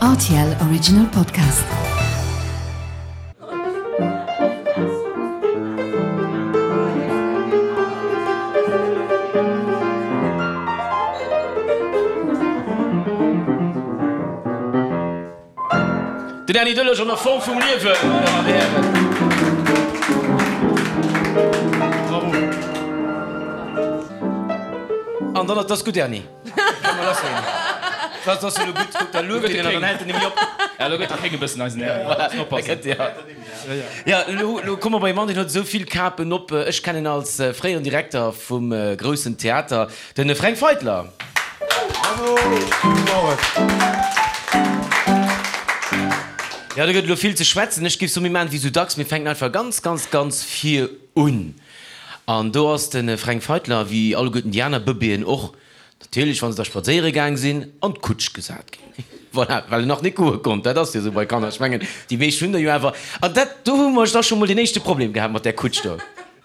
Rtl Original Podcast. Den Erny Delage an der Form vum Liewen, meine Damen an Hären. Bravo. An dann, dat ass gutt, Erny. Kann mer lass ginn. Dat ass jo elo gutt. Kuck, da lueft een en an dann hält en nemmi op. Ja, elo gëtt de Kéng e bëssen eisen Erny. Voilà, da gëtt, ja. Ja, elo, elo komme mer bei e Mann, deen huet esou vill Kapen op. Ech kennen en als fréieren Direkter vum Groussen Theater, de Fränk Feitler. Bravo! Gudde Morgen. Ja, do gëtt elo vill ze schwätzen. Ech géif soen, mir maachen et wéi esou dacks, mir fänken einfach ganz, ganz, ganz vir un. An do ass de Fränk Feitler, wéi alleguerten déi aner Bëbeeën och, natierlech, wa se da spadséiere gaang sinn, an d'Kutsch gesat ginn. Voilà, well en nach net goe konnt. Dat ass jo esou bei Kanner. Ech mengen, déi meescht hunn der jo awer. An dat, do hu mer da scho mol den éischte Problem gehat mat där Kutsch do.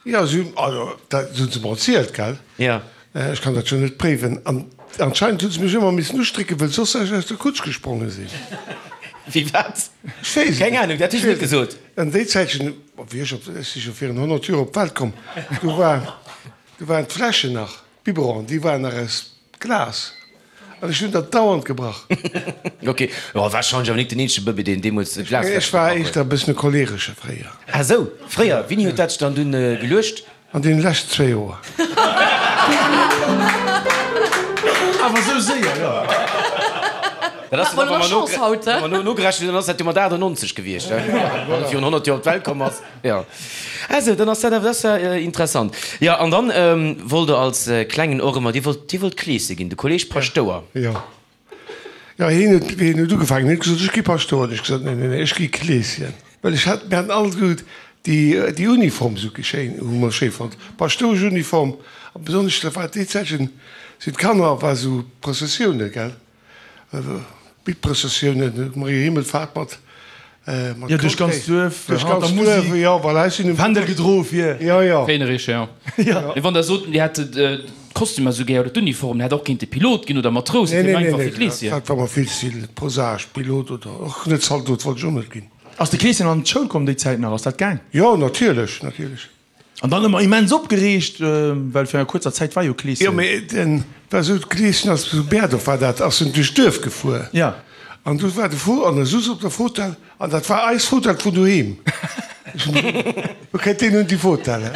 Jo, si hunn, also dat hu se mer erzielt, gell? Jo. Ech kann dat jo net préiwen. An anscheinend hu se mech ëmmer missen ustrécken, well soss ech aus der Kutsch gespronge sinn. Wéi wat? Ech weess et Keng net. Ahnung, dat hu ech net gesot. An déi Zäitchen, wéi ech op, ech si scho virun 100 Joer op d'Welt komm, do war, do waren d'Fläschen nach, d'Biberonen, déi waren nach aus Glas. An ech hunn der dauernd gebrach. Ok, jo, warscheinlech awer nik den eenzege Bëbee, deen deemools e Glasfläschchen Ech war gebrach huet. éischter e bëssen e Choleresche fréier. Ah sou, fréier. Wéini huet dat sech dann dunn geluecht? An deene leschten zwéi Joer. Awer sou séier, jo. Dat ass dann, wa mer no, nogerechent hunn, dann ass dat jo mat 98 gewiescht, wann e virun 100 Joer op d'Welt komm ass. Jo, also dann ass dat awer, dat ass ja interessant. Jo, an dann wollt Der als Klengen och ëmmer, Dir wollt, Dir wollt Kleesche ginn, de Kolleg Paschtouer. Jo, jo, hien huet, hien huet ugefaangen, hien huet gesot, ech gi Paschtouer. Hunn ech gesot, nee, nee, nee, ech gi Kleeschen. Well ech hat, mir haten all gesot, déi, déi Uniform esou schéin, hu mer schéi fonnt, d'Paschtoueschuniform. A besonnesch, dat war déi Zäitchen, sinn d'Kanner, war esou Prëssessiounen, gell. Bittprëssessiounen, Maria Himmelfahrt mat mat Jo, duerch ganz Duerf, duerch ganz Duerf, jo, voilà, ech sinn um Fändel gedro fir. Jo, jo. Féinerich, jo. Mee wann der sot, Dir hätt d'Kostümer esou gär oder d'Uniform, der hätt och kéinte Pilot ginn oder Matrous, Nee, et wier nee, einfach nee, fir d'Kleeschen. dat war mer vill ze vill prosaisch, Pilot oder och net Zaldot wollt ech och net ginn. Ass de Kleeschen an d'Schoul komm déi Zäit nach? Ass dat gaang? Jo, natierlech, natierlech. An dann ëmmer immens opgereegt, well fir eng kuerzer Zäit war jo Kleeschen. Jo, mee den war esou, Kleeschen ass zu Berdorf war dat, ass en duerch d'Duerf gefuer. Ja. An du war de Fo an e souz op der Fotell an dat war eis Fotell vun doheem. Ech hunn gesot, Wou kënnt deen un déi Fotell?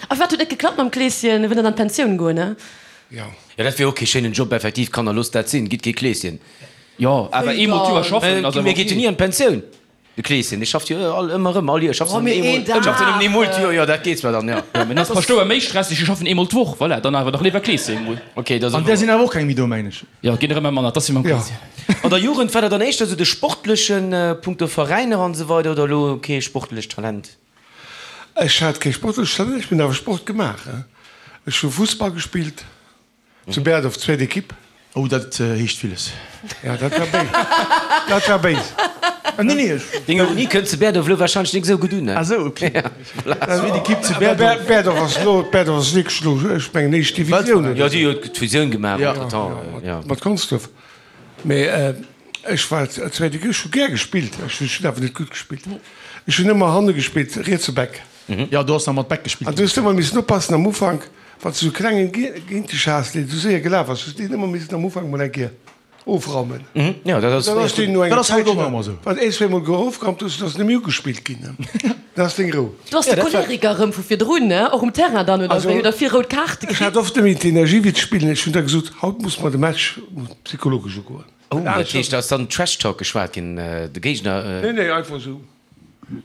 A wat huet net geklappt mam Kleeschen? E wëll dann an d'Pensioun goen, ne? Jo. Jo, dat wier och kee schéinen Job, effektiv. Kanner, loosst dat sinn, gitt kee Kleeschen. Jo, awer eemol d'Joer schaffen ass awer Mir geet jo ok. ni an d'Pensioun. De Kleeschen, dee schafft jo all ëmmer erëm, all Joer, schafft Oh, en mee eemol, een Dag! schafft en nëmmen eemol d'Joer, jo, dat geet zwar dann, jo. Jo, mee dann ass Paschtouer méi stresseg, déi schaffen eemol d'Woch, voilà, dann awer dach léiwer Kleeschen emol. Ok, dat ass An där sinn awer och keng méi do, mengen ech. Jo, ginn der ëmmer manner, 't ass wéi mam Kleeschen. An der Jugend, war der dann éischter esou de sportlechen, punkto Veräiner an esou weider, oder elo kee sportlecht Talent? Ech hat kee sportlecht Talent, ech hunn awer Sport gemaach. Ech hu Fussball gespillt. Zu Berdorf, zweet Equipe. Oh, dat heescht villes. Ja, dat war béis. Dat war béis. Nee, nee, ech. Deng Ironie kënnt zu Berdorf elo warscheinlech nik esou gutt un, ne? Ah sou, ok. Zweet Equipe zu Berdorf. Berdorf ass elo, Berdorf ass wierklech elo, ech mengen, éischt Divisioun, oder? Jo, déi huet d'Fusioun gemaach entretemps, jo. Mat Consdorf. Mee ech war zweet Equipe, ech hu gär gespillt, ech hunn awer net gutt gespillt. Ech hunn ëmmer hanne gespillt, rietse Back. Jo, do ass nach mat Back gespillt An du hues ëmmer missen oppassen am Ufank, wann s du sou klengen géint dech has, deen sou séier gelaf ass, hues deen ëmmer missen am Ufank mol eng Kéier ofraumen. Jo, dat ass Dann ass deen no Dat enger ass haut Zäitchen, och nach ëmmer sou. wann een, zweemol ofgeraumt hues, dann ass en net méi ugespillt ginn. Dann ass deng Rou. Du ass de Choleriker erëm vu virdrun, ne? Och um Terrain dann, oder wéi? Huet der vill rout Kaarte Ech kritt? hat oft net méi d'Energie fir ze spillen. Ech hunn da gesot, haut muss mer de Match psychologesch ugoen. Oh, dat heescht, da ass dann Trash Talk geschwat ginn, de Géigner. Nee, nee, einfach sou.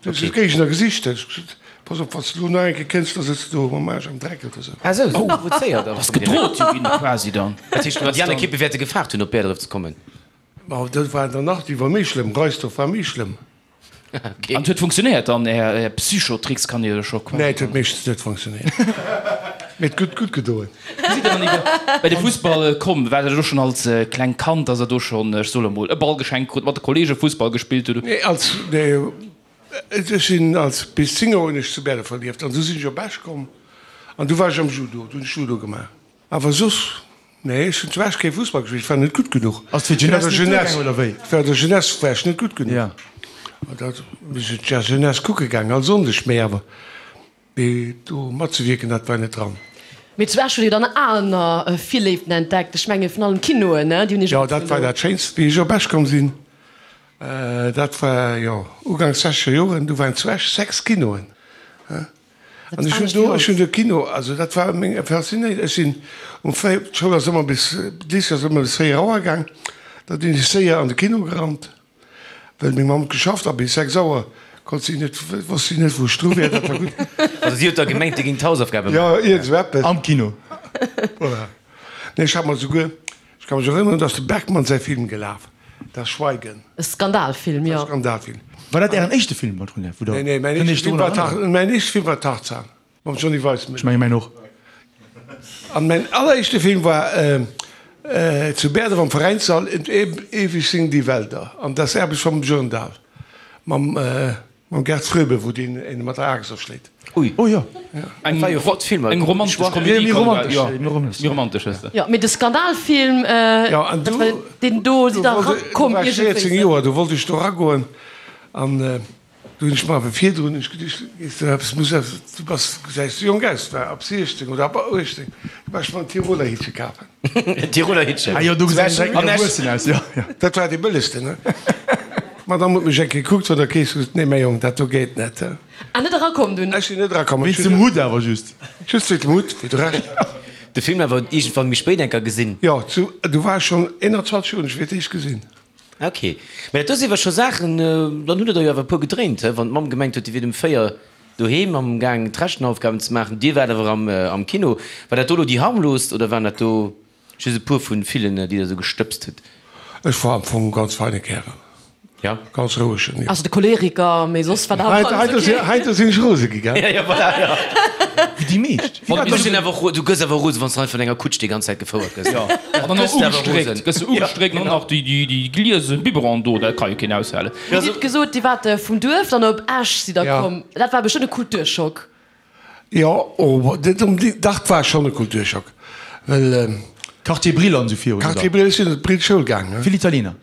Du hues de Géigner gesicht, hues gesot, Pass op, wann s de elo nach eng Kéier kënns, da sëtz de do mam Aarsch am Dreck oder sou. Ah sou, sou provozéiert Ass gedrot jo ginn quasi dann. Dat heescht, déi aner Ekippe wäerte gefaart hunn, op Bäerdref ze kommen? Ma dat war der nach, déi war méi schlëmm, Reisdorf war méi schlëmm. An et huet funktionéiert dann, Är Psychotricks kann ee jo scho quasi. Nee, et huet meeschtens net funktionéiert. Mee et huet gutt gedoen. Wéi sidd Der dann iwwer bei de Fussball komm? War dat och schonn als klengt Kand, dass Der do schonn, ech soe lo mol, e Ball geschenkt krut, mat de Kollege Fussball gespillt hutt? Nee, als, nee, ech sinn als, bis 10 Joer hunn ech zu Berdorf verlieft an du sinn ech op Esch komm an du war ech am Judo, du hunn ech Judo gemaach. Awer soss. Nee, ech hunn zu Esch kee Fussball gespillt, ech war net gutt genuch. Ass fir d'Jeunesse net duergaangen, oder wéi? Ech war der Jeunesse war ech net gutt genuch. Ja. An dat, mir sinn d'Jeunesse kucke gaangen, all Sonndeg, mee awer mee do matzewierken, dat war net dran. Mee zu Esch hutt Dir dann aner Virléiften entdeckt, ech menge vun allem Kinoen, ne? Déi hunn Iech Jo, dat war dat Schéinst, wéi ech op Esch komm sinn. Dat war, jo, uganks sechzeger Joren, du waren zu Esch 6 Kinoen. An ech hunn do, ech hunn de Kino, also dat war meng Faszinéi, ech sinn um 4, d'Schoul ass ëmmer bis, d'Lycée ass ëmmer bis 4 Auer gaang, da sinn ech séier an de Kino gerannt, well meng Mamm huet geschafft a bis 6 Auer konnt si net, wosst si net wou ech dru wier, dat war gutt. Also si huet da gemengt, Dir géingt d'Hausaufgabe maachen? Jo, iergend esou eppes. Am Kino. Voilà. Nee, ech hat mer souguer, Ech ka mech erënneren, dass de Bergman säi Film gelaf, Das Schweigen. E Skandalfilm, jo. E Skandalfilm. War dat Ären éischte Film, Paul Trunier, wou Der Nee, nee, mäin éischte Film war Tar, mäin éischte Film war Tarzan mam Johnny Weissmuller. Ech menge mäin och. An mäin alleréischte Film war zu Bäerdref am Veräinssall, Und ewig singen die Wälder, an Das Erbe vom Björndal mam. Mam Gerd Fröbe, wou deen een mat der Aaxt erschléit. Ui. Oh jo. Eng war jo flott Filmer. Eng romantesch Komedie. Méi romantesch, jo. Méi romantesch ass dat. Jo, mee de Skandalfilm, dat war deen do, sidd der erakomm iergendwéi. Du war ech 14 Joer, do wollt ech do eragoen an do hunn ech mer awer virdrun hunn ech geduecht, gees de eppes muss eppes, du bass, gesäis jonk aus, war ab 16 oder ab 18, du war ech mer en Tiroler Hittche kafen. En Tiroler Hittchen. Ah jo, do gesäit een direkt méi erwuessen aus, jo, jo. Dat war dee bëllegsten, ne? D'Madame huet mech eng Kéier gekuckt vun der Kees, huet gesot, Nee, mäi Jong, dat do geet net. Ah, net erakomm dunn? Ech sinn net erakomm. Wéinst dem Hutt awer just. Just wéinst dem Hutt, wéi de Rescht. De Film awer iergendwann méi spéit eng Kéier gesinn? Jo, zu, du war ech schonn 21 Joer, hunn ech fir d'éischt gesinn. Ok. Mä dat do si awer scho Saachen, dann hutt Der der jo awer e puer gedréint, he? Wann d'Mamm gemengt huet, Dir wiert um 4 doheem am gaang d'Rechenaufgaben ze maachen, Dir waart awer am Kino. War dat do elo déi harmloost oder waren dat do just e puer vu villen, déi Der esou gestëbst hutt? Ech war am Fong e ganz feine Kärel. Ja. Ganz rouegen, jo. Also de Choleriker, mee soss war dat alles ok. Heiansdo sinn ech rose gi, gell? Ja, ja, voilà, ja. Wéi déi meescht. Du sinn awer och, du gëss awer rose, wann s de einfach vun enger Kutsch déi ganz Zäit gefouert gëss. Ja, an dann och ugestréckt, gëss de ugestréckt an dann nach déi, déi, déi gliese Biberon do, dat ka jo keen aushalen. Dir hutt gesot, Dir waart vum Duerf dann op Esch sidd Der komm. Dat war bestëmmt e Kulturschock. Jo, oh, net onbedéngt, dach, 't war schonn e Kulturschock, well. Quartier Brill an esou virun, oder? Quartier Brill, ech sinn an d'Brill Schoul gaangen. Vill Italiener?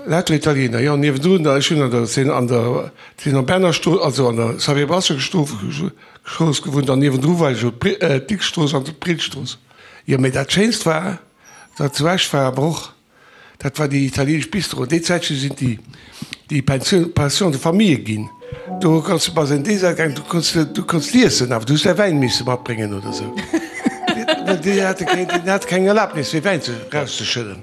Lauter Italiener, jo, niewendrun, ech hunn an der, sinn an der, sinn am Berner-Strooss, also an der Xavier Brasseur-Strooss gewunnt an niewendru war jo d'Dicks-Strooss an d'Brillstrooss. Jo, mee dat Schéinst war, wat zu Esch war, awer och Dat war déi italienesch Bistro. Déi Zäitche sinn déi déi Pensioun, Pension de famille ginn. Do kanns du bass en Dessert gaangen, du konns du konns liessen, awer du hues däi Wäin misse matbréngen oder sou. Well déi hate keng, déi hate keng Erlaabnis fir Wäin ze rauszeschëdden.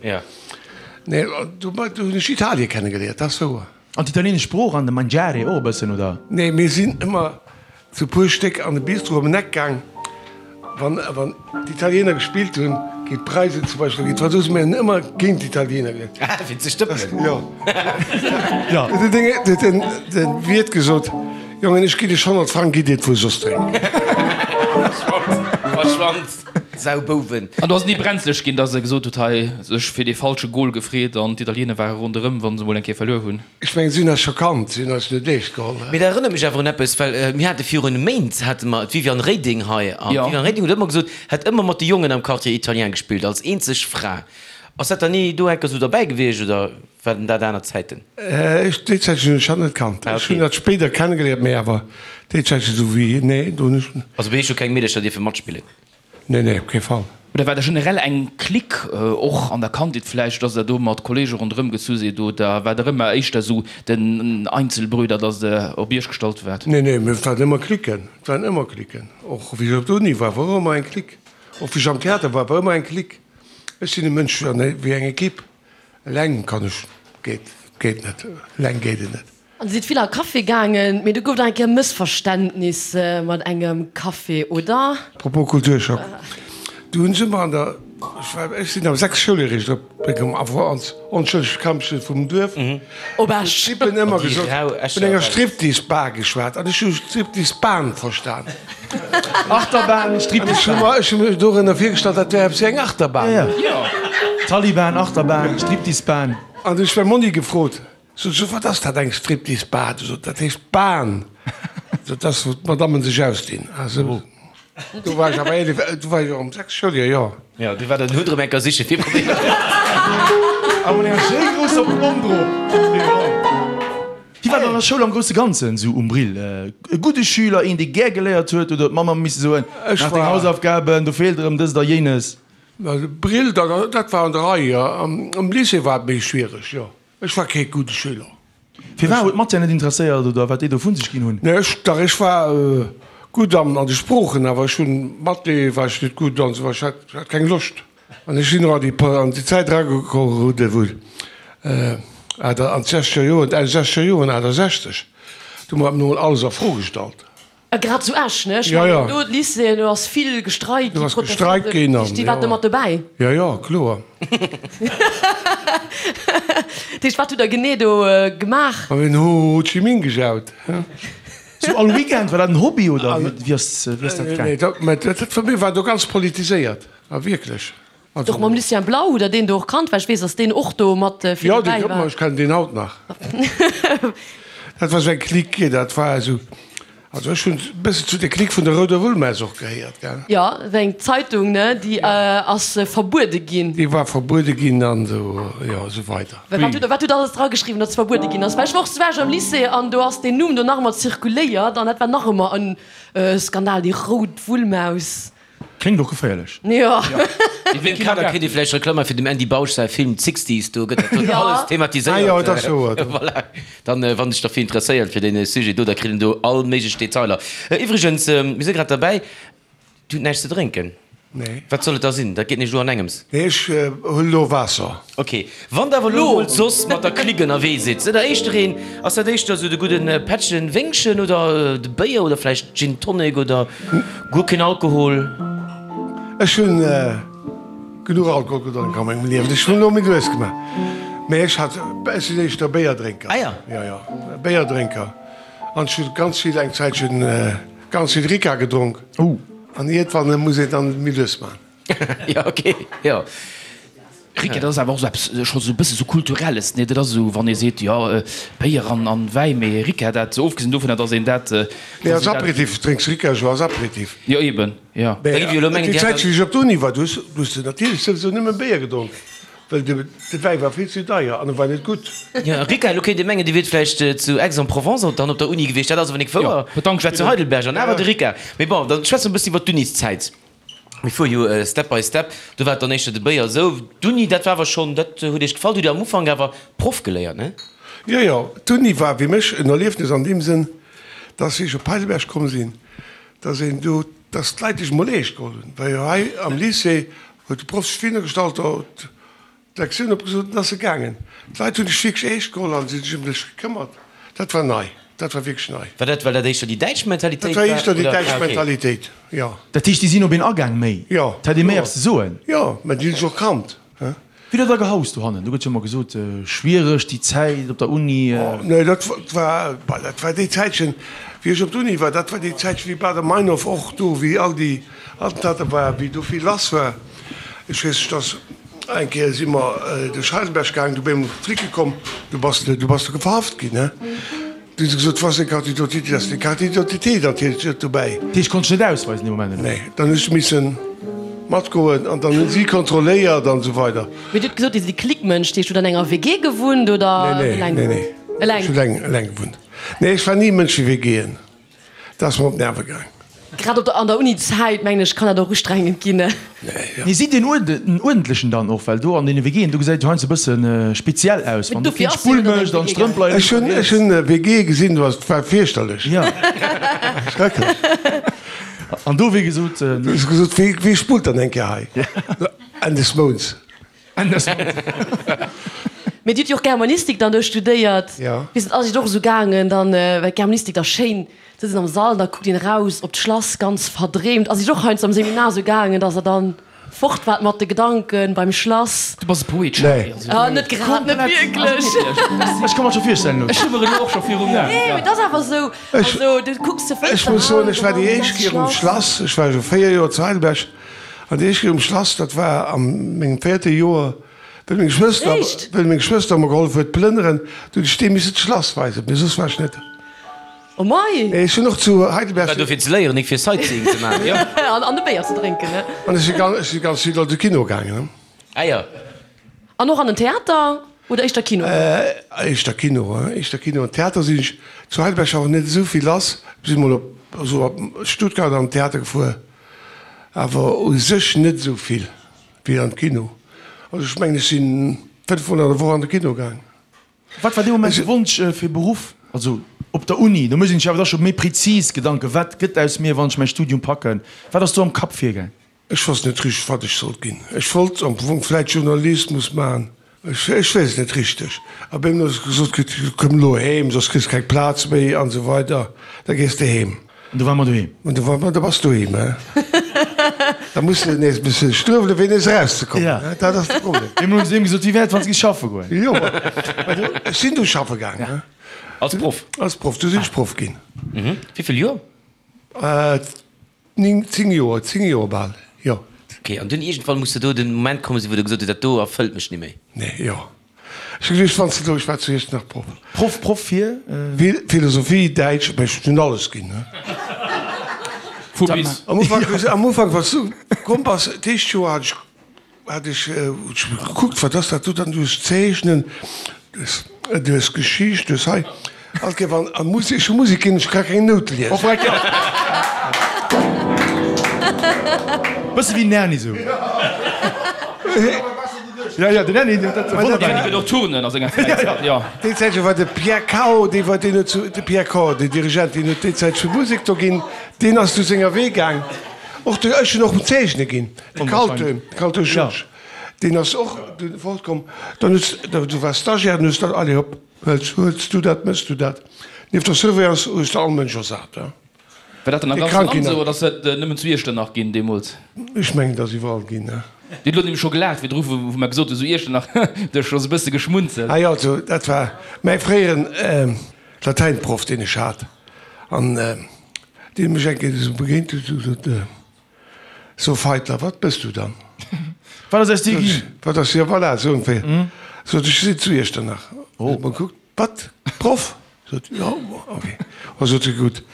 Nee, do do hunn ech Italie kennegeléiert, dat ass wouer. An d'italieenesch Sprooch an de Mangiare och e bëssen, oder? Nee, mir sinn ëmmer zu puer Stéck an de Bistro ëm en Eck gaang, wann, wann d'Italiener gespillt hunn, géint d'Preisen zum Beispill, oder géint d'Fransousen, mir hunn ëmmer géint d'Italiener gespillt. Ah, fir ze stëppelen. Jo. Jo. Huet den, huet den, den Wiert gesot, Jongen, ech ginn iech 100 Frang, gitt iert wuer soss drénken. Verschwand, verschwand, Saubouwen. An do ass et ni brenzlech ginn, dass e gesot huet, hei, sech fir dee falsche Gol gefreet an d'Italiener ware ronderëm, wa se mol eng Kéier verluer hunn. Ech mengen, si hunn eis scho kannt, si hunn eis net eescht geholl. Mee dat erënnert mech awer un eppes, well mir hate virun Méint hate mer d'Viviane Reding hei an d'Viviane Reding huet ëmmer gesot, hätt ëmmer mat de Jongen am Quartier Italien gespillt, als eenzeg Fra. Ass dat dann ni do enker esou derbäi gewiescht oder waren dat aner Zäiten? Ech, déi Zäit hunn ech hatt net kannt. Ech hunn hatt spéider kennegeléiert, mee awer déi Zäit esou wéi, nee, do hunn ech. Also bei iech hu keng Meedercher dierfe matspillen? Nee, nee, op kee Fall. Oder war der generell eng Clique, och an der Kandheet vläicht, dass der do mat Kollege ronderëm gezu sidd, oder war der ëmmer éischter esou den Einzelbrüder, dass der op iech gestallt waart? Nee, nee, mir waren ëmmer Cliquen, et waren ëmmer Cliquen. Och wéi ech op der Uni war, war och ëmmer eng Clique. Och wéi ech am Theater war, war ëmmer eng Clique. Ech sinn e Mënsch wéi eng Equipe. Eleng kann ech, geet, geet net, eleng geet et net. An Dir sidd vill a Café gaangen, mee do gouf et nach eng Kéier Mëssverständnis mat engem Café, oder? Propos Kulturschock, du hunn ech ëmmer an der, ech war, ech sinn am 6 Schouljoer eréischt op komm, awer als onschëllegt Kampchen vum Duerf, Op Esch. D'Typen ëmmer gesot, vun enger Striptease-Bar geschwat an ech hu Striptease-Bahn verstan. Achterbahn, Striptease-Bahn. Ech hu mir dorënner virgestallt, dat wär eppes wéi eng Achterbahn. Jo, Taliban, Achterbahn, Striptease-Bahn. An du hunn ech mäi Monni gefrot, Sot se, wat ass dat, eng Striptease-Bar? Du sot, dat heescht Bahn. Sot, dat ass, wou d'Madammen sech ausdinn. Ah sou. Do war ech awer 11, do war ech och am 6 Schouljoer, jo. Jo, du war den Hutt erëm eng Kéier siche fir Problemer. A mat enger schéi grousser Plomm drop. Wéi war dann an der Schoul am grousse Ganzen esou um Brill? E gudde Schüler, een dee gär geléiert huet oder huet d'Mamm ëmmer misse soen, Maach deng Hausaufgaben, do feelt erëm dëst a jéines? Brill, dat war an der Rei, jo. Am Lycée war et méi schwiereg, jo. Ech war kee gudde Schüler. Firwat? Huet d'Matière net interesséiert oder wat déi do vu sech ginn hunn? Nee, ech, dach, ech war gutt an de Sproochen, awer ech hunn, Mathé war ech net gutt an esou, ech hat, ech hat keng Loscht. An ech sinn och an déi, an déi Zäit erageroden, wou, an d'sechzeger Joren, Enn sechzeger Joren, 68, do hu mer emol alles a Fro gestallt. A grad zu Esch, ne? Ech Ja, mengen, ja. do d'Lycéeën, do ass vill gestreikt Do ginn, ass gestreikt ginn an, Déi waren do jo. mat dobäi. Ja, ja, kloer. Dat heescht, wat hutt Der genee do gemaach? Mer hunn Ho Chi Minh gejaut. Sou all Weekend? War dat en Hobby oder wéi ass, wéi ass dat gaang? Nee, dat, mä dat, dat, mir waren do ganz politiséiert, a wierklech. Also. Och mam Lucien Blau, hutt Der deen do och kannt? Well ech weess, datt deen och do mat vill Jo, dobäi dee, war. ech kennen deen haut nach. Dat war sou eng Clique, dat war esou, also ech hunn e bëssen zu der Clique vun der Rouder Wullmaus och gehéiert, gell. Jo, dat war eng Zeitung, ne, déi ass verbuede ginn. Déi war verbuede ginn an esou, jo, esou weider. Wat hutt Der, wat hutt Der alles drageschriwwen, datt se verbuede ginn ass? Well ech war och zu Esch am Lycée an do ass deen Numm do nach ëmmer zirkuléiert an dat war nach ëmmer en Skandal, déi Rout Wullmaus. Kléngt och geféierlech. Jo. An deem Kader kritt ee vläicht Reklamm fir dem Andy Bausch säi Film Sixties, do gëtt dat alles thematiséiert. Ah jo, et ass wouer. Voilà, dann wann sech derfir interesséiert fir dee Sujet do, da kritt een do all méiglech Detailer. Iwwregens, mir si grad derbäi, Dir hutt näischt ze drénken? Nee. Wat soll et da sinn? Dat geet nämlech elo an engems. Nee, ech huelen elo Waasser. Ok, wann der awer elo mol soss mat der Clique ënnerwee sidd, sidd der éischter een, ass dat éischter esou de gudden Pättchen Wéngchen oder de Béier oder vläicht Gin Tonic oder guer keen Alkohol? Ech hunn genuch Alkohol gedronk a mengem Liewen, ech hunn elo méi lues gemaach, mee ech hat, ech sinn éischter Béierdrénker. Ah ja. Jo, jo, Béierdrénker an ech hunn ganz vill, eng Zäitchen ganz vill Ricard gedronk. An iergendwann muss een dann méi lues maachen. Jo, ok, jo. Rick, dat ass awer och esou eppes, scho sou e bësse sou Kulturelles, nee? Dat ass esou, wann ee seet, jo, Béier an an Wäi, mee Ricard, dat, ofgesinn dovunner, datt een dat, Nee, als Aperitif drénks Ricard jo als Aperitif. Jo, eben, jo. Mee déi Zäit, wéi ech op d'Uni war, du hues, du hues natierlech souwisou nëmme Béier gedronk, well de, de Wäi war vill ze deier an e war net gutt. Jo, Ricard, elo kéint ee mengen, Dir wiert vläicht zu Aix-en-Provence dann op der Uni gewiescht, dat ass awer nik wouer. Jo, Ech war zu Heidelberg an awer de Ricard. Mee bon, dann schwätze mer e bëssen iwwer d'Uniszäit. Mir fuere jo step by step. Do war et dann éischter de Béier esou. D'Uni, dat war awer schonn, dat huet Iech gefall. Do hutt Dir am Ufank awer Proff geléiert, ne? Jo, jo, d'Uni war fir mech en Erliefnis an deem Sënn, dass wéi ech op Heidelberg komm sinn, dass een do, dass d'Leit dech emol eescht geholl hunn, well jo hei am Lycée huet de Proff sech virhinner gestallt, D'Lektioun opgesot an ass se gaangen. D'Leit hunn dech wierklech eescht geholl an si sech ëm dech gekëmmert. Dat war nei. Dat war wierklech nei. War dat, well dat éischter déi däitsch Mentalitéit Dat war war, éischter déi oder? däitsch Ah, okay. Mentalitéit, jo. Dat heescht, déi sinn op een agaang méi? Jo. Et hätt ee méi eppes ze soen? Jo, mä déi hunn sech och kannt, he. Wéi dat da gehaust dohannen? Do gëtt jo ëmmer gesot, schwiereg déi Zäit op der Uni. Nee, dat war, bah, dat war déi Zäitchen, wéi ech op der Uni war, dat war déi Zäitchen, wéi Baader-Meinhof och do, wéi all déi Attentater war, wéi do vill lass war. Ech weess, dass eng Kéier si mer duerch Heidelberg gaangen, du beim Flicke komm, du bass du bass du verhaft ginn, he. Du hu se gesot, was eng Carte d'identité, ass deng Carte d'identité natierlech net dobäi. Dat heescht, konnt dech net ausweisen dee Moment, oder? Nee, dann hu ech missen matgoen an dann hunn si kontrolléiert an esou weider. Mee Dir hutt gesot, Dir sidd e Clique-Mënsch, dat heescht, hutt an enger WG gewunnt oder Nee, nee, eleng? nee, nee. Eleng? Ech hu eleng, eleng gewunnt. Nee, ech war ni e Mënsch fir WGen. Dat ass mer op d'Nerve gaang. Grad op der, an der Uni-Zäit, mengen ech, kann dat och ustrengend ginn. Mee sidd Dir en uerdentlechen dann och? Well do an deene WGen, do gesäit et jo heiansdo e bësse speziell aus, wann do keen d'Spull mécht an d'Strëmp leien Ech hunn, ech hunn WGe gesinn, do ass, et war fierchterlech. Jo. Schrecklech. An do, wéi gesot. Du hues gesot, wee, wee spullt dann eng Kéier hei? Enn des Mounts. Mee Dir hutt jo och Germanistik dann do studéiert. Jo. Wéi ass et och esou gaangen dann, well d'Germanistik da schéin sëtzt een am Sall, da kuckt een eraus op d'Schlass, ganz verdreemt. Ass Iech och heiansdo am Seminar esou gaangen, dass Der dann fort waart mat de Gedanken beim Schlass? Du bass e Poet, Charly. Nee. Also. Ah, net grad, net wierklech. Ech ka mer et scho virstellen elo. Ech hu mer elo och scho virum Aen. Nee, mee et ass awer esou. Also du kucks zur Ech Fënster muss soen, eraus ech war an déi dann éischt ass Kéier um Schlass. Schlass, ech war jo 4 Joer zu Heidelberg, An déi éischt Kéier um Schlass, dat war a mengem véierte Joer, wéi meng Schwëster, Echt? wéi meng Schwëster mer gehollef huet plënneren, du hunn ech deem missen d'Schlass weisen, mee soss war ech net. Oh mei! Ech hunn och zu Heidelberg. War do fir ze léieren, nik fir Sightseeing ze maachen, jo. An e Béier ze drénken, ne? An ech si ganz, ech si ganz vill an de Kino gaangen, ne? Ah jo. An och an den Theater oder éischter Kino? Éischter Kino, éischter Kino. An Theater sinn ech zu Heidelberg awer net esou vill lass. Ech sinn mol op, esou op Stuttgart an den Theater gefuer, awer u sech net esou vill wéi an de Kino. Also ech mengen, ech si 5 mol an der Woch an de Kino gaang. Wat war dee Moment de Wonsch fir Beruff? Also op der Uni, do mécht een sech awer da scho méi prezis Gedanken, wat gëtt aus mir, wann ech mäi Studium packen? Wat ass do am Kapp virgaang? Ech wosst net richteg, wat ech sollt ginn. Ech wollt am Fong vläit Journalismus maachen, ech weess et net richteg. A bei mir ass gesot kritt, komm elo heem, soss kriss keng Plaz méi an esou weider, da gees de heem. An du war mer doheem. An du war mer, da bass doheem, he. Da muss de nees e bësse struewelen, fir nees erauszekommen, he. Dat ass de Problem. Eemol hunn se deem gesot, wéi wär et, wann s de géifs schaffe goen? Jo, mä du, ech sinn du schaffe gaang, he. Als Proff? Als Proff, du sinn ech Proff ginn. Wéi vill Joer? Ning, 10 Joer, 10 Joer bal, jo. Ok, an dunn iergendwann muss der do den Moment kommen sinn, wou der gesot hutt, dat do erfëllt mech ni méi. Nee, jo. Ech hu geduecht, wann s de do, ech war zu Iechternach Proff. Proff, Proff fir? Philosophie, Däitsch, mä ech hunn alles ginn, ne. Vu bis. Am Ufank, am Ufank, wann s du komm bass, d'éischt Joer hat ech Hat ech gekuckt, wat ass dat do dann, du hues Zeechnen, du hues, du hues Geschicht, du hues hei, all Kéier wann a Musek, ech hu Musek ginn, ech ka keng Noute liesen. Bësse wéi den Erny sou. Ja, ja, den Erny, dat wonnert Den Erny gëtt och Turnen a senger Fräizäit, jo. Déi Zäit war de Pierre Cao, dee war, deen huet zu, de Pierre Cao, den Dirigent, deen huet déi Zäit zu Musek do ginn, deen ass du senger Wee gaang. Och de, ech hunn och Zeechne ginn. De Kalte, Kalte Georges, deen ass och dunn fortkomm. Dann hues de, du waars Stagiaire, dann hues de, allez hop, huels, huels du dat, méchs du dat. Nieft der Surveillance hues de all Mënsch ersat, hein. War dat dann am Déi ganze Krank Land ginn esou oder ass dat nëmmen zu Iechternach ginn deemools? Ech mengen, et ass iwwerall ginn, hein. Dir hutt elo nämlech scho gelaacht virdru, wou wou mer gesot hu sou Iechternach, du hues scho sou e bësse geschmunzelt. Ah jo, also dat war mäi fréieren Latäinproff, deen ech hat an deen mech eng Kéier esou begéint huet, esou gesot, So Feitler, wat bëss du dann? Wat ass aus dir ginn? Wat ass, jo voilà, esou ongeféier. Sot ech, ech sinn zu Iechternach. Oh. Huet mer gekuckt, wat, Proff? Sot, jo, ok. Oh, sot e, gutt,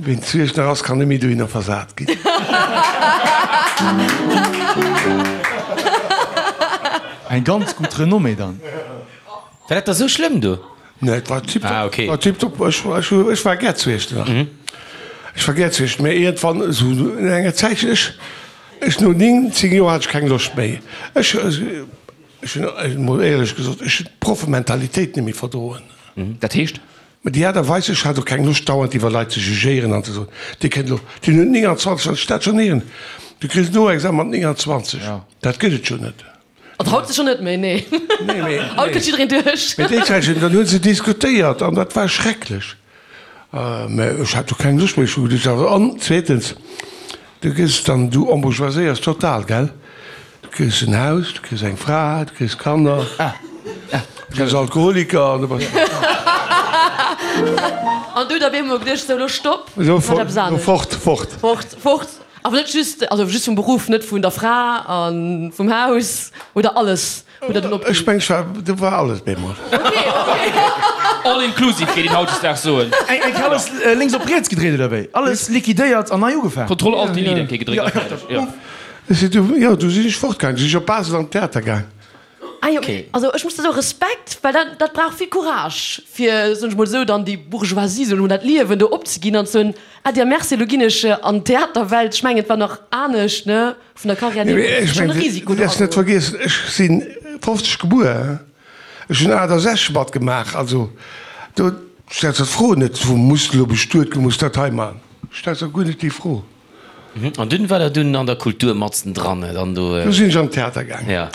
ween zu Iechternach ass, kann net méi dohinner versat ginn. Eng ganz gutt Renommée dann. War dat da sou schlëmm do? Nee, et war tiptop. Ah, okay. War tiptop. Ech, ech, ech war gär zu Iechternach. Mhm. Ech war gär zu Iechternach, mä iergendwann, esou no enger Zäitchen, ech, ech no 9, 10 Joer hat ech keng Loscht méi. Ech, ech hunn, emol éierlech gesot, ech hunn d'Proffementalitéit net méi verdroen. Mhm. Dat heescht? Mä déi Aart a Weis, ech hat och keng Loscht dauernd iwwer Leit ze jugéieren an ze soen, dee kënnt elo, deen huet 29, wann ech dat schonn héieren, du kriss en Noexamen mat 29, dat gëtt et jo net. An haut sécher net méi, nee. Nee, mee, Haut kënnt jiddereen duerch. Mee déi Zäit, dann hu se diskutéiert an dat war schrecklech. Mä ech hat jo keng Loscht méi, ech hu geduecht, awer an zweetens, du gëss dann, du embourgeoiséiers total, gell? Du kriss en Haus, du kriss eng Fra, du kriss Kanner, du gëss Alkoholiker an du bass. An du hutt op eemol geduecht, sou, elo stopp, Elo ech maachen eppes anescht. fort, fort. Fort, fort. Awer net just, also just vum Beruff, net vun der Fra a vum Haus oder alles hutt der dunn opginn? Ech mengen, ech war, do war alles bemol. Okay, okay. All inclusive géif een hautdesdaags soen. Eng Kéier alles lénks op riets gedréit oder wéi? Alles liquidéiert an nei ugefaang? Contrôle alt delete eng Kéier gedréckt a fäerdeg, jo. Ech sinn du, jo, du sinn ech fortgaang, du sinn ech op Basel an d'Theater gaang. Ah jo, also ech muss da soen, Respekt, well dat, dat brauch vill Courage, fir, soen ech mol esou, dann déi Bourgeoisie, soen ech mol, dat Liewen do opzeginn an ze soen, Adieu, merci, elo ginn ech an d'Theaterwelt. Ech mengen, et war nach anescht, ne, vun der Carrière Nee, hier, mee ech schon e mengen, Risiko du do däerfs net agoen. vergiessen, ech si 50 gebuer, ech hunn 68 matgemaach, also do stells de d'Fro net, wou muss de elo bestuet ginn, muss dat hei maachen, stells der guer net déi Fro. An dunn war der dunn an der Kultur matzen dran, dann do. Du sinn ech an den Theater gaang. Ja.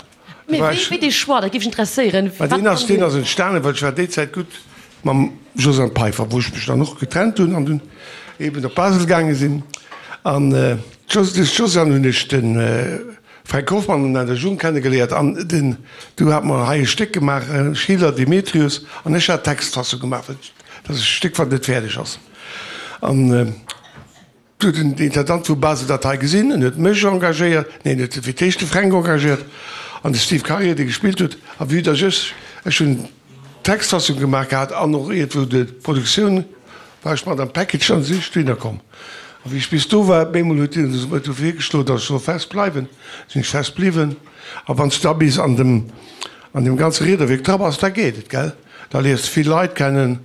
Mee wéi, wéi dee Choix, dat géif mech interesséieren. Mä deen ass, deen ass entstanen, well ech war déi Zäit gutt mam Josiane Peiffer, wou ech mech dann och getrennt hunn an dunn eben op Basel gaange sinn. An duerch d'Josiane hunn ech de Fränk Hoffmann an der Jung kennegeléiert an den, du hat mer hei e Stéck gemaach, Schiller, Demetrius, an ech hat d'Textfassung gemaach, well dat ass e Stéck, wat net fäerdeg ass. An. Du huet den Intendant vu Basel dat hei gesinn en huet mech engagéiert, neen, en huet fir d'éischt de Fränk engagéiert an de Steve Karier, dee gespillt huet. A vue dass ech, ech hunn d'Textfassung gemaach gehat an och iergendwou d'Produktioun. War ech mat am Package an si ech dohinner komm. A wéi ech bis do war, op eemol huet hien huet e virgeschloen, datt ech soll fest bleiwen. Sinn ech fest bliwwen. A wann s du da bis an dem an deem ganze Riederwierk dra bass, da geet et, gell? Da léiers de vill Leit kennen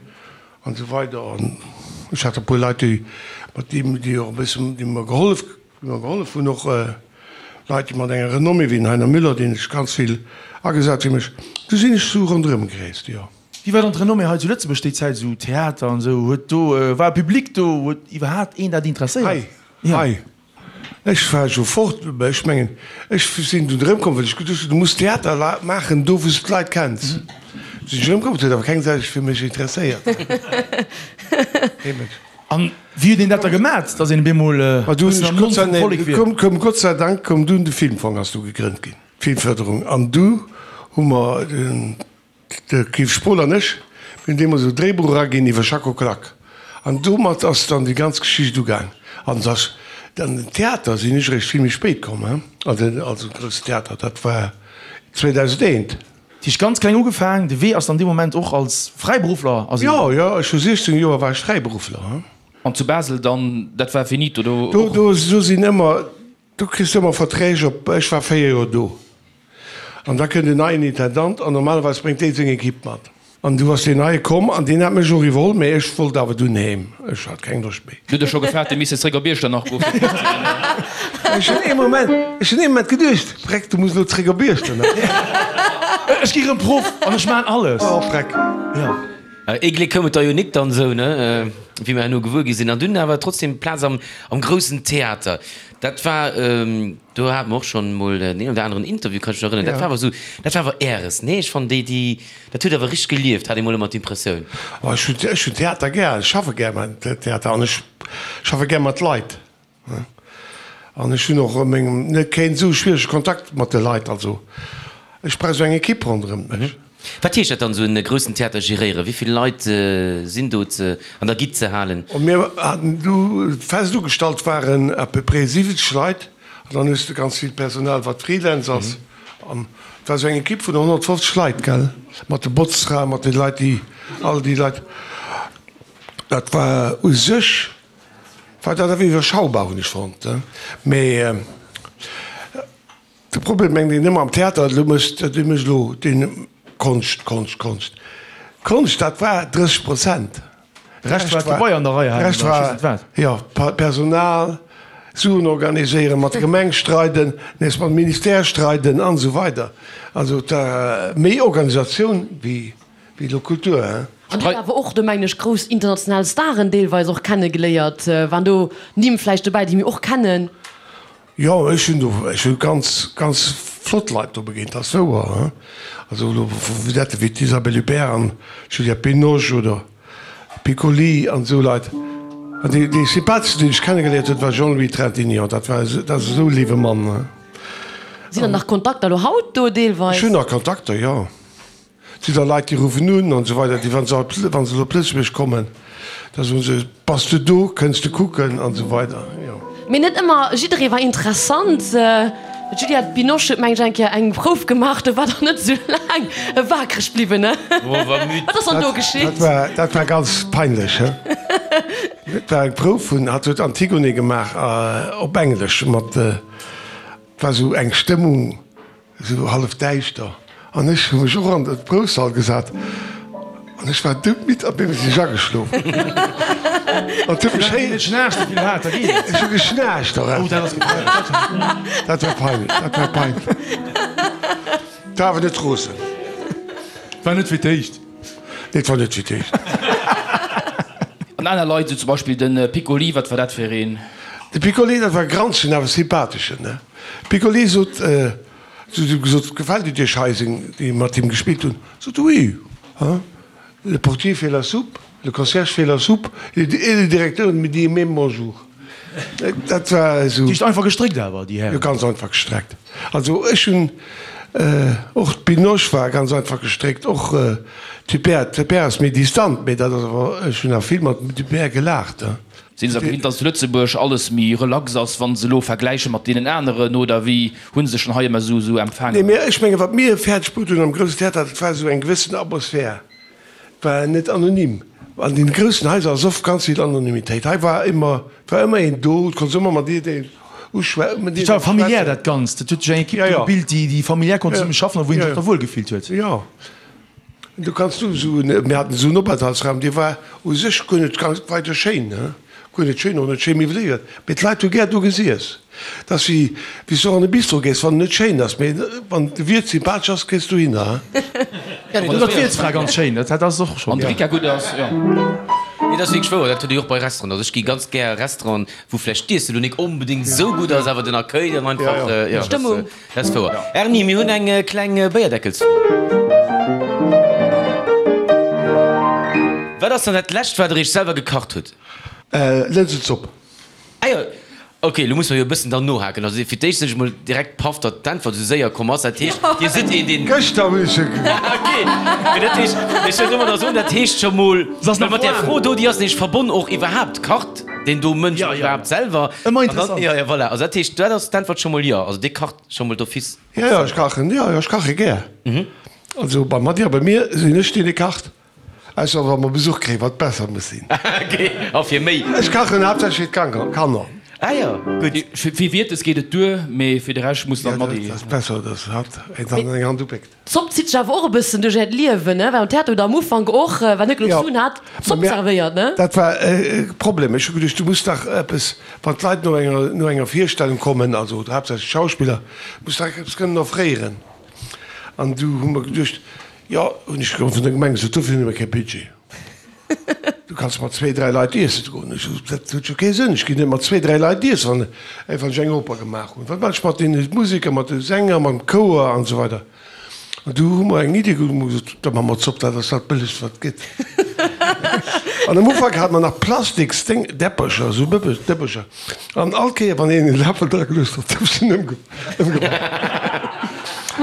an esou weider. An ech hat e puer Leit, déi mat deem, déi och e bëssen, déi mer gehollef, déi mer gehollef hunn, och Leit, déi mat enger Renommée wéi den Heiner Müller, deen sech ganz vill agesat fir mech. Du sinn ech sou ronderëm gereest, jo. Wéi war dann d'Renommée hei zu Lëtzebuerg déi Zäit, esou Theater an esou? Huet do, war e Public do? Huet iwwerhaapt een dat interesséiert? Hei, hei. Ech war jo fort, mä ech mengen, ech sinn dunn erëmkomm, well ech geduecht hunn, du muss Theater maachen do, wou s de d'Leit kenns. Du sinn ech erëmkomm, et huet awer keng Säu sech fir mech interesséiert. Kee Mënsch. An wéi huet een dat da gemat, datt een op eemol e bëssen am Mond vum Vollek wier? Koum, koum Gott sei Dank koum dunn de Filmfong ass du gegrënnt ginn, d'Filmförderung, an du hu mer den, De Yves Spohl an ech, mir hunn deemools e Dréibuch eraginn iwwer Schacko Klak. An domat ass dann déi ganz Geschicht ugaang. An dass an den Theater sinn ech eréischt vill méi spéit komm, hein, an den, also den groussen Theater, dat war 2001. Dat heescht ganz kleng ugefaang, de Wee ass dann dee Moment och als Fräiberuffler ass een. Jo, jo, ech hu 16 Joer war ech Fräiberuffler, hein. An zu Basel dann, dat war finito do och? Do, do sinn ëmmer, do kriss de ëmmer Verträg op, ech war 4 Joer do. An da kënnt en neien Intendant an normalerweis bréngt dee seng Equipe mat. An du ass deen neie komm an deen hat mech och iwwerholl, mä ech wollt awer dunn heem, ech hat keng Loscht méi. Du hutt der scho gefaart, Dir misst zréck op Iechternach goen fir Proff ze ginn? Ech hunn ee Moment, ech hunn ee Moment geduecht, Freck, du muss elo zréck op Iechternach. Ech gi rëm Proff an ech maan alles. Oh Freck. Jo. Ee Gléck koum et der jo nik dann esou, ne, wéi mer herno gewuer gi sinn. An dunn awer trotzdem Plaz am groussen Theater. Dat war, do hate mer och schonn emol deen een oder aneren Interview, kann ech mech erënneren. Dat war awer esou, dat war awer Äres, nee? Ech fannen déi, déi, dat huet awer richteg gelieft, hat ee mol ëmmer d'Impressioun. Oh, ech hunn, ech hunn Theater gär, ech schaffe gär beim Theater an ech schaffe gär mat Leit. An ech hunn och a mengem, net keen esou schwierege Kontakt mat de Leit, also ech brauch esou eng Ekipp ronderëm mech. Wat heescht dat dann, esou e groussen Theater geréieren? Wéi vill Leit sinn do ze an der Gitt ze halen? Mir haten du fest ugestallt waren à peu près 70 Leit an dann hues de ganz vill Personal wat Freelance ass an et war esou eng Ekipp vun 150 Leit, gell, mat de Botzfraen, mat de Leit déi, all déi Leit. Dat war u sech war dat awer iwwerschaubar hunn ech fonnt, mee. De Problem mengt een ëmmer am Theater, elo mécht, dee mécht elo deen Konscht, Konscht, Konscht. Konscht, dat war 30 Prozent. De Rescht war d'Gebai an der Rei halen oder ech weess net wat. Jo, Personal, Suen organiséieren, mat der Gemeng streiden, nees mam Ministère streiden an esou weider. Also et war méi Organisatioun wéi elo Kultur, hein. An huet awer och do, mengen ech, grouss international Staren deelweis och kennegeléiert. Waren do Nimm vläicht dobäi, déi mir och kennen? Jo, ech hunn do, ech hu ganz, ganz flott Leit do begéint, dat ass wouer, hein. Also elo vu Vedette wéi d'Isabelle Huppert an d'Juliette Binoche oder Piccoli an esou Leit. An dee, dee sympatheschsten, deen ech kennegeléiert hunn, war Jean-Louis Trintignant. Dat war, dat ass esou e léiwe Mann, hein. Sinn dann nach Kontakter elo haut do deelweis? Ech hunn nach Kontakter, jo. Et sinn da Leit, déi ruffen un an esou weider, déi, wa se wa se op Lëtzebuerg kommen, da soen se, Bass de do, kënns de kucken an esou weider, jo. Mee net ëmmer jidderee war interessant. D'Juliette Binoche huet, meng ech, eng Kéier eng Prouf gemaach, do war der net esou laang waakreg bliwwen, ne? Wat ass dann do geschitt? Dat war, dat war ganz peinlech, he. Dat war eng Prouf vun, hatt huet Antigone gemaach op Englesch mat, et war esou eng Stëmmung, Esou hallef däischter, an ech hu mech och an de Proufsall gesat an ech war doudmidd a bin sech ageschlof. An et huet mech héi. Ech hu geschnaarcht och einfach. Dat war peinlech, dat war peinlech. Et war awer net rosen. War net fir d'éischt. Nee, et war net fir d'éischt. An aner Leit, esou zum Beispill de Piccoli, wat war dat fir een? De Piccoli, dat war e granzegen, awer sympatheschen, ne? Piccoli sot, si hu gesot, gefält et Iech hei, seng, déi mat him gespillt hunn, sot e, oui, hein, le portier fait la soupe, le concierge fait la soupe et le directeur me dit même bonjour. Dat war esou. Déi einfach gestréckt awer, déi Hären. Jo, ganz einfach gestreckt. Also ech hunn, och d'Binoche war ganz einfach gestréckt, och d'Huppert, d'Huppert ass méi distant, mee dat ass awer, ech hunn awer vill mat dem Huppert gelaacht, hein. Sinn se gewinnt, dass zu Lëtzebuerg alles méi relax ass, wa se elo vergläiche mat deenen aneren, oder wéi hu se sech dann hei ëmmer esou esou Nee, empfaangen? mee ech mengen, wat mir fäerdeg brutt hunn am Groussen Theater, dat war esou eng gewëssen Atmosphär. Et war net anonym. An den groussen Haiser ass oft ganz vill Anonymitéit. Hei war ëmmer, war ëmmer een do, et konns ëmmer mat jiddereen uschwä-, mat Et war jidderengem familiär schwätzen. dat Ganzt. Et huet sech eng Ekipp Ja, do ja. gebilt, déi, déi familiär konnt Ja, zesumme schaffen a wou een ja, sech da wuel gefillt huet. ja. Du kanns du esou en, mir haten esou en Openthaltsraum, dee war u sech guer net ganz weider schéin, ne, guer net schéin, och net schéi miwweléiert, mee d'Leit hu gär do gesiess. Dat ass wéi, wéi s du och an e Bistro gees, wann en net schéin ass, mee wann de Wiert sympathesch ass, gees du dohinner, he. Ja, nee, dat ass d'Wiertsfra ganz schéin, dat dat ass och schonn. Wann de Rika gutt ass, jo. Nee, dat ass wierklech wouer, dat huet ee jo och bei Restauranten. Also ech gi ganz gär a Restauranten, wou vläicht d'Iesse lo nik onbedéngt esou gutt ass, awer den Accueil dann einfach, jo, D'Stëmmung. Dat ass wouer. Erni, mir hunn eng kleng Béierdeckelsfro. Wat ass dann dat lescht, wat der iech selwer gekacht hutt? Lënsenzopp. Ah jo, ok, elo musse mer jo e bëssen dann nohaken. Also fir d'éischt sinn ech emol direkt paff, datt d'Äntwert esou séier komm ass. Dat heescht, Dir sidd een, deen. Gëschter hunn ech se Ah ok, mee dat heescht, ech wëll domadder soen, dat heescht scho mol, well mat där Fro do, déi ass nämlech verbonn och iwwerhaapt, kacht deen do Mënsch och iwwerhaapt selwer? Ëmmer interessant. Jo, jo, voilà. Also dat heescht, dat ass d'Äntwert scho mol jo. Also Dir kacht scho mol d'office Jo, jo, ech kachen, jo, jo, ech kache gär. Also beim Matti a bei mir sinn ech deen, dee kacht. Ausser wa mer Besuch kréien, wat besser muss sinn. Ok, a fir méi? Ech kachen haaptsächlech fir d'Kanner. Ah jo, gutt. Fir Wiertes geet et duer, mee fir de Rescht muss dann d'Matti. Jo, dat ass besser, dass hatt eng Hand eng Hand upéckt. D'Zopp zitt sech awer och e bëssen duerch äert Liewen, ne? Well am Theater hutt der am Ufank och, wann net genuch Suen hat, Zopp servéiert, ne? Dat war e Problem. Ech hu geduecht, du muss dach eppes, wann d'Leit no enger, no enger Virstellung kommen, also haaptsächlech d'Schauspiller, muss dach eppes kënnen offréieren. An du hu mer geduecht, jo, hunn ech vun der Gemeng gesot, dofir hunn ech kee Budget. Du kanns mat zwéi, dräi Leit iessen goen. Ech sot, dat huet jo kee Sënn, ech ginn net mat zwéi, dräi Leit iessen, wann wann ech eng Oper gemaach hunn. Wat maache ech mat deene Museker, mat de Sänger, mam Chouer an esou weider. An du hu mer eng Iddi geholl, hu mer gesot, da maache mer Zopp, dat ass dat Bëllegst, wat et gëtt. An am Ufank hate mer nach plastiks Déng, Däppercher, esou Bëbbe, Dëppercher. An all Kéier, wann een e Läffel dra geluecht huet, gouf se ëmgeworf.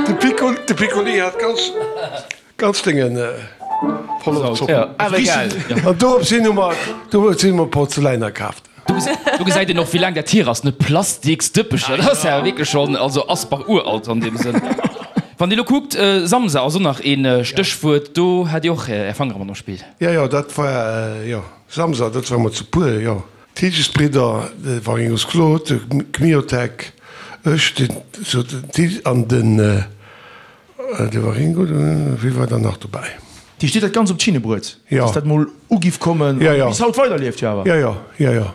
De Piccoli, de Piccoli hat ganz, ganz Déngen voller Zopp. Awer egal. An dorops hin hu mer, dorops hin hu mer Porzeläiner kaaft. Do gesäit een och, wéi laang dat hier ass, ne? Plastiks Dëppecher, dat ass ja wierklech schonn, also Asbach uralt an deem Sënn. Wann Dir elo kuckt, Samsa ass och nach ee Stéchwuert, do hat Dir och Är Fangere mat am Spill. Jo, jo, dat war, jo, Samsa, dat war mer zu puer, jo. D'Hilgesbridder, de Waringos Claude, de Kmiotek, ech, den sou den Til an den de Waringo, wie war dann nach dobäi? Déi steet dat ganz op d'Schinne bruet, Jo. dass dat mol ugiff kommen Jo, an jo. bis haut weiderlieft jo awer. Jo, jo, jo, jo.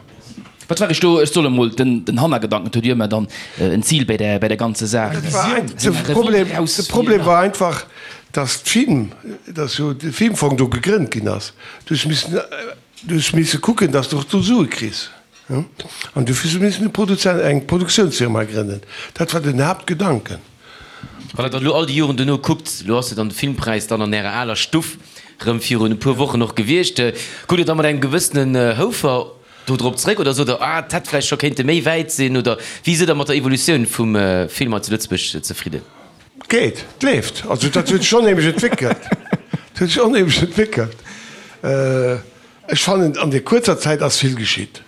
Wat war ech do? Ech soll emol den den Hannergedanken, et huet jo ëmmer dann en Zil bei der bei der ganze Saach. Dat war ein, de Problem, de Problem war einfach, dass d'Film, dass jo de Filmfong do gegrënnt ginn ass. Du hues missen Du hues misse kucken, dass de och do Sue kriss. An dofir hu se missen e Produzent, eng Produktiounsfirma grënnen. Dat war den Haaptgedanken. Wann Der dann elo all déi Joren duerno kuckt, elo ass jo dann de Filmpräis dann an Ärer aler Stuff erëm virun e puer Wochen och gewiescht, kuckt Der da mat engem gewëssenen Houfer do drop zréck oder sot Der, ah, et hätt vläicht scho kéinte méi wäit sinn? Oder wéi sidd Der mat der Evolutioun vum Film hei zu Lëtzebuerg zefridden? Geet, et leeft. Also dat huet sech onheemlech entwéckelt. Dat huet sech onheemlech entwéckelt. Ech fannen, an där kuerzer Zäit ass vill geschitt.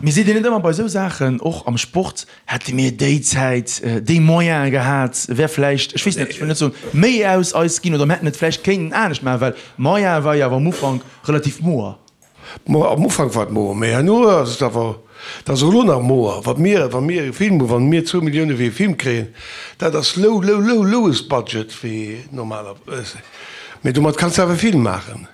Mee seet Dir net ëmmer bei esou Saachen, och am Sport, hätte mir déi Zäit déi Moyene gehat, wär vläicht, ech weess net, ech wëll net soen, méi aus eis ginn oder mir hätten et vläicht kéinten anescht maachen, well Moyene war jo awer am Ufank relativ moer. Mo, am Ufank war et moer, mee herno ass et awer, et ass och elo nach moer, wat mir, wa mir e Film hunn, wa mir zwou Millioune fir e Film kréien, dat ass low, low, low, lowest budget wéi normalerweis. Mee domat kanns de awer e Film maachen.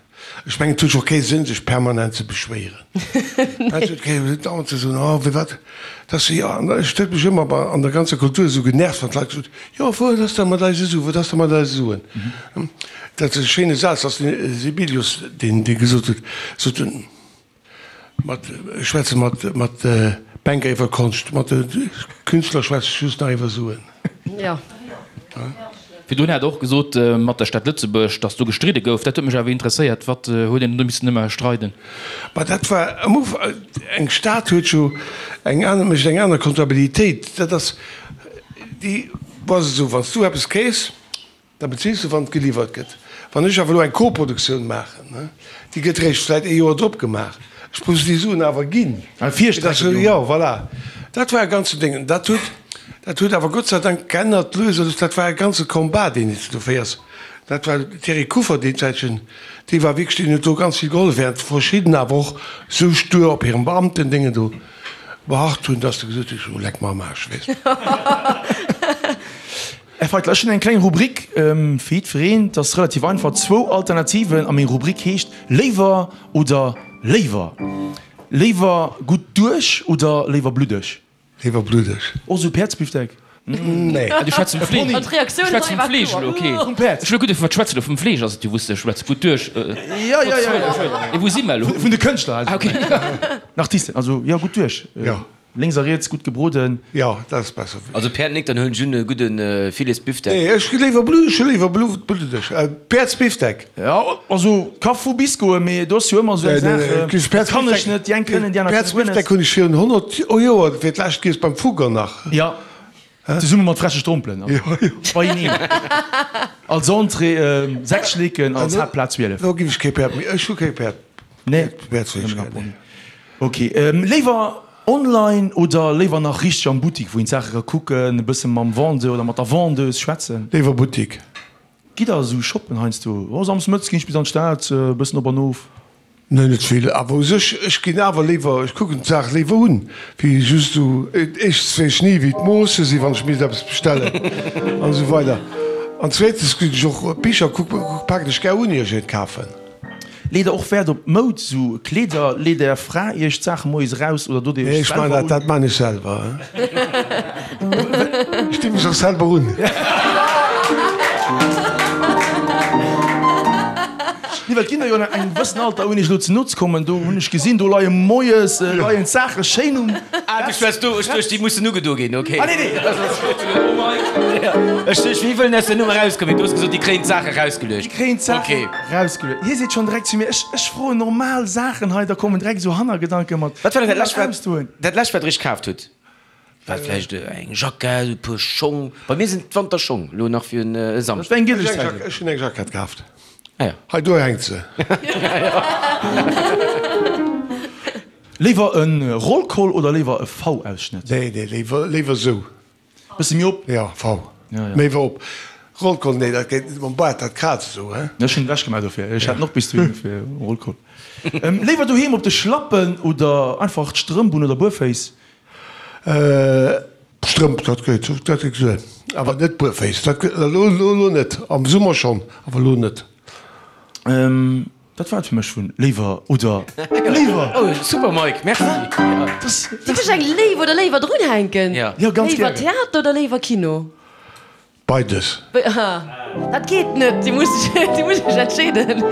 Ech mengen, et huet jo och kee Sënn, sech permanent ze beschwéieren. Et huet kee Sënn, dauernd ze soen, oh, firwat, dass, jo, an ech huet mech ëmmer bei, an der ganzer Kultur esou genervt, wann d'Leit gesot hunn, jo, wat ass da mat eise Suen, wat ass da mat eise Suen? Dat ass e schéine Saz, ass de Sibelius, deen dee gesot huet, sot en, mat, ech schwätze mat, mat Banker iwwer Konscht, mat de Künstler schwätze ech just nach iwwer Suen. Jo. Virdrun hat Der och gesot mat der Stad Lëtzebuerg, datt do gestridde gouf. Dat huet mech awer interesséiert. Wat huet een do missen ëmmer streiden? Ma dat war am Ufank, eng Stad huet jo eng aner, mécht eng aner Comptabilitéit. Dat ass déi, ass esou, wann s du eppes kriss, Da bezils de wann et geliwwert gëtt. Wann ech awer elo eng Koproduktioun maachen, déi gëtt eréischt vläit ee Joer drop gemaach, ech muss déi Suen awer ginn. Jo, voilà. Dat war e ganzen Déng. Dat huet. Dat huet awer Gott sei Dank geännert lues a lues. Dat war e ganze Combat, deen s de do féiers. Dat war den Thierry Kuffer deen Zäitchen, dee war wierklech, deen huet do ganz vill gehollef, während verschidden awer och sou stur op hirem Beamtendéngen do beharrt hunn, dass de gesot hues, oh leck mer am Aarsch, weess de. Här Feitler, ech hunn eng kleng Rubrik fir jiddwereen. Et ass relativ einfach, zwou Alternativen a meng Rubrik heescht Léiwer oder léiwer. Léiwer gutt duerch oder léiwer bluddeg? Léiwer bluddeg. Och sou Päerdsbifdeck? Nee. Ah, du schwätz vum Fleesch. An d'Reaktioun Du schwätz hei vum war Fleesch kloer. elo, okay. Vum Päerd. Ech hu lo gutt, wat schwätz de elo? Vum Fleesch ass et jo, wou s de schwätz. Gutt duerch. Jo, jo, jo, jo. Wou si mer elo? Vun de Kënschtler, also. Ah, okay. Den Artisten, also jo, gutt duerch. Jo. Lénks a riets gutt gebroden. Jo, dat ass besser. Also Päerd nik, dann huelen ech un e gudde Filetsbifdeck. Nee, ech léiwer bluddeg, ech hu léiwer bluddeg. Päerdsbifdeck. Jo, also ka vu bis goen, mee do ass jo ëmmer esou eng Saach, dat kann ech net, déi eng kënnen, déi aner kënnen guer net. Päerdsbifdeck hunn ech virun 100 Joer fir d'lescht giess, beim Fugger nach. Jo, zesumme mat freche Strompelen, also beieneen. Als Entrée 6 Schleeken, als Haaptplat 12. Lo ginn ech kee Päerd méi, ech hu kee Päerd. Nee, Päerdsfleesch gär, nee. Ok, léiwer online oder léiwer nach richteg am Buttik, wou een d'Saache ka kucken, e bësse mam Vendeur oder mat der Vendeuse schwätzen? Léiwer Buttik. Gitt der esou shoppen heiansdo? Oh, Samsdes mëttes ginn ech bis an d'Stad, e bëssen op an of. Nee, net vill, awer u sech, ech ginn awer léiwer, ech kucken d'Saach léiwer un, wéi just esou, éischtens weess ech ni wéi d'Moosse sinn, wann ech misst eppes bestellen an esou weider an zweetens ginn ech och Bicher kucken, paken ech gär un ier ech eent kafen. Leet der och Wäert op Moud, sou Kleeder? Leet är Fra iech d'Saache moies eraus oder dot dir Nee, iech ech man selwer dat, un? dat man ech selwer. Ech di mech och selwer un. Nee, well d'Kinner jo an engem gewëssen Alter, ouni iech elo ze no ze kommen, do hunn ech gesinn, do leie moies leien d'Saache schéin um Ah, du schwätz do, ech duecht, déi mussen ugedo ginn, ok. Ah, nee, nee. Ech duecht, wéi wëllen aus der Nummer erauskommen? Du hues gesot, déi kréien d'Saache erausgeluecht. Déi kréien d'Saachen Ok. Rausgeluet. Hie seet schonn direkt zu mir, ech, ech froen normal Saachen hei, da kommen direkt esou Hannergedanke mat. Wat war denn dat lescht, wat, Ausdoen. dat lescht, wat Der Iech kaaft hutt? War et vläicht eng Jackett, e puer Schong? Bei mir sinn et d'Wanterschong, elo nach fir e Dat Samschdeg. war eng gülleg Ech hunn eng Zäit. Jack, ech hunn eng Jackett kaaft. Ah ja. Hei do hänkt se. Léiwer e Rollkoll oder léiwer e V-Ausschnëtt? Nee, nee, léiwer, léiwer esou. Bësse méi op? Jo, V. Méi wou op. Rollkoll, nee, dat geet net mam Baart, dat kraazt esou, he? Ech hunn ewech gemaach dofir. Ech hat en och bis dohin dofir, Rollkoll. Léiwer doheem op de Schlappen oder einfach d'Strëmp un oder buerféiss? Strëmp, dat geet, dat geet duer. Awer net buerféiss, dat geet elo, elo net. Am Summer schonn, awer elo net. Dat war et fir mech vun Léiwer oder Léiwer. Oh super Mike, merci. Dierf ech eng Léiw oder Léiwer drunhänken? Ja. Jo, ganz Léiwer gären. Theater oder léiwer Kino? Beides. Dat geet net, Dir musst iech, Dir musst iech entscheeden.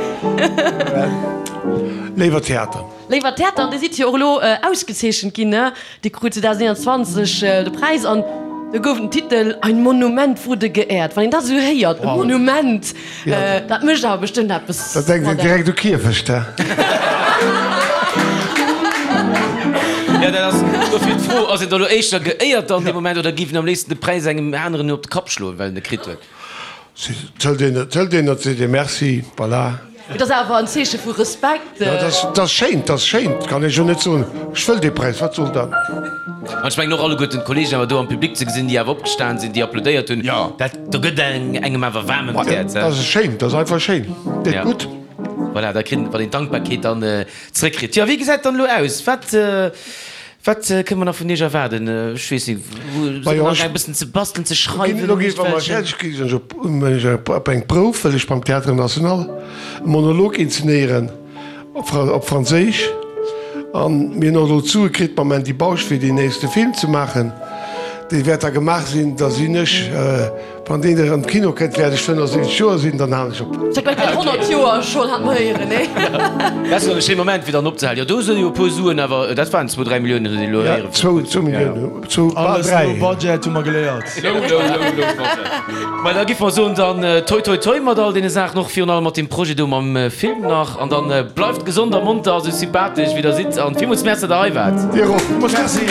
Léiwer Theater. Léiwer Theater, an Dir sidd jo och elo ausgezeechent ginn, ne? Dir krut 2021 de Präis an do gouf den Titel Ein Monument wurde geehrt. Wann een dat esou héiert, e Monument, dat mécht awer bestëmmt eppes Da denkt een mat engem. direkt u Kierfecht, he? Jo, dat ass dofir d'Fro, ass een da lo éischter geéiert dann dee Moment oder géif een am léifsten de Präis engem aneren op de Kapp schloen, well en e kritt huet? Zëllt een, zëllt een, dat seet ee Merci, voilà. Et ass awer en Zeeche vu Respekt. Jo, dat ass, dat ass schéin, dat ass schéin, kann ech jo net soen, ech wëll dee Präis, wat soll dat? An ech mengen och alleguerten d'Kollegen awer do am Public ze gesinn, déi awer opgestan sinn, déi applaudéiert hunn, dat, do gëtt engem awer waarm ëm d'Häerz. Dat ass schéin, dat ass einfach schéin, deet gutt. Voilà, da kritt, wann een d'Dankbarkeet dann zréckkritt. Jo, wéi gesäit dann elo aus? Wat, Wat kënne mer nach vun Iech erwaarden? Ech weess net, wou sidd Der nach e bëssen ze bastelen, ze schreiwen? Elo gi wa mer fäerdeg gi sinn, ech op eng Prouf, wëll ech beim Théâtre National e Monolog inzenéieren op Franséisch. An mir hunn och elo d'Sue kritt mam Andy Bausch, fir deen nächste Film ze maachen. Dee wäert da gemaach sinn, da sinn ech Wann deen erëm Kino kënnt, wäert ech 75 Joer sinn, dann halen ech op. Sech bei den 100 Joer schonn hat mer héieren, nee? Dat ass jo e schéi Moment fir dann opzehalen. Jo, do si jo e puer Suen, awer dat waren zwou, dräi Milliounen, huet een elo héieren. Zwou, zwou Milliounen, zwou, bal Alles dräi. low budget, hu mer geléiert. Low, low, low, low budget. Mä da giff mer soen, dann toi toi toi mat all deene Saachen, och virun allem mat deem Projet do mam Film nach. An dann bleift gesond a monter a sou sympathesch wéi der sidd. An villmools Merci, datt der hei waart. Dir och. Merci.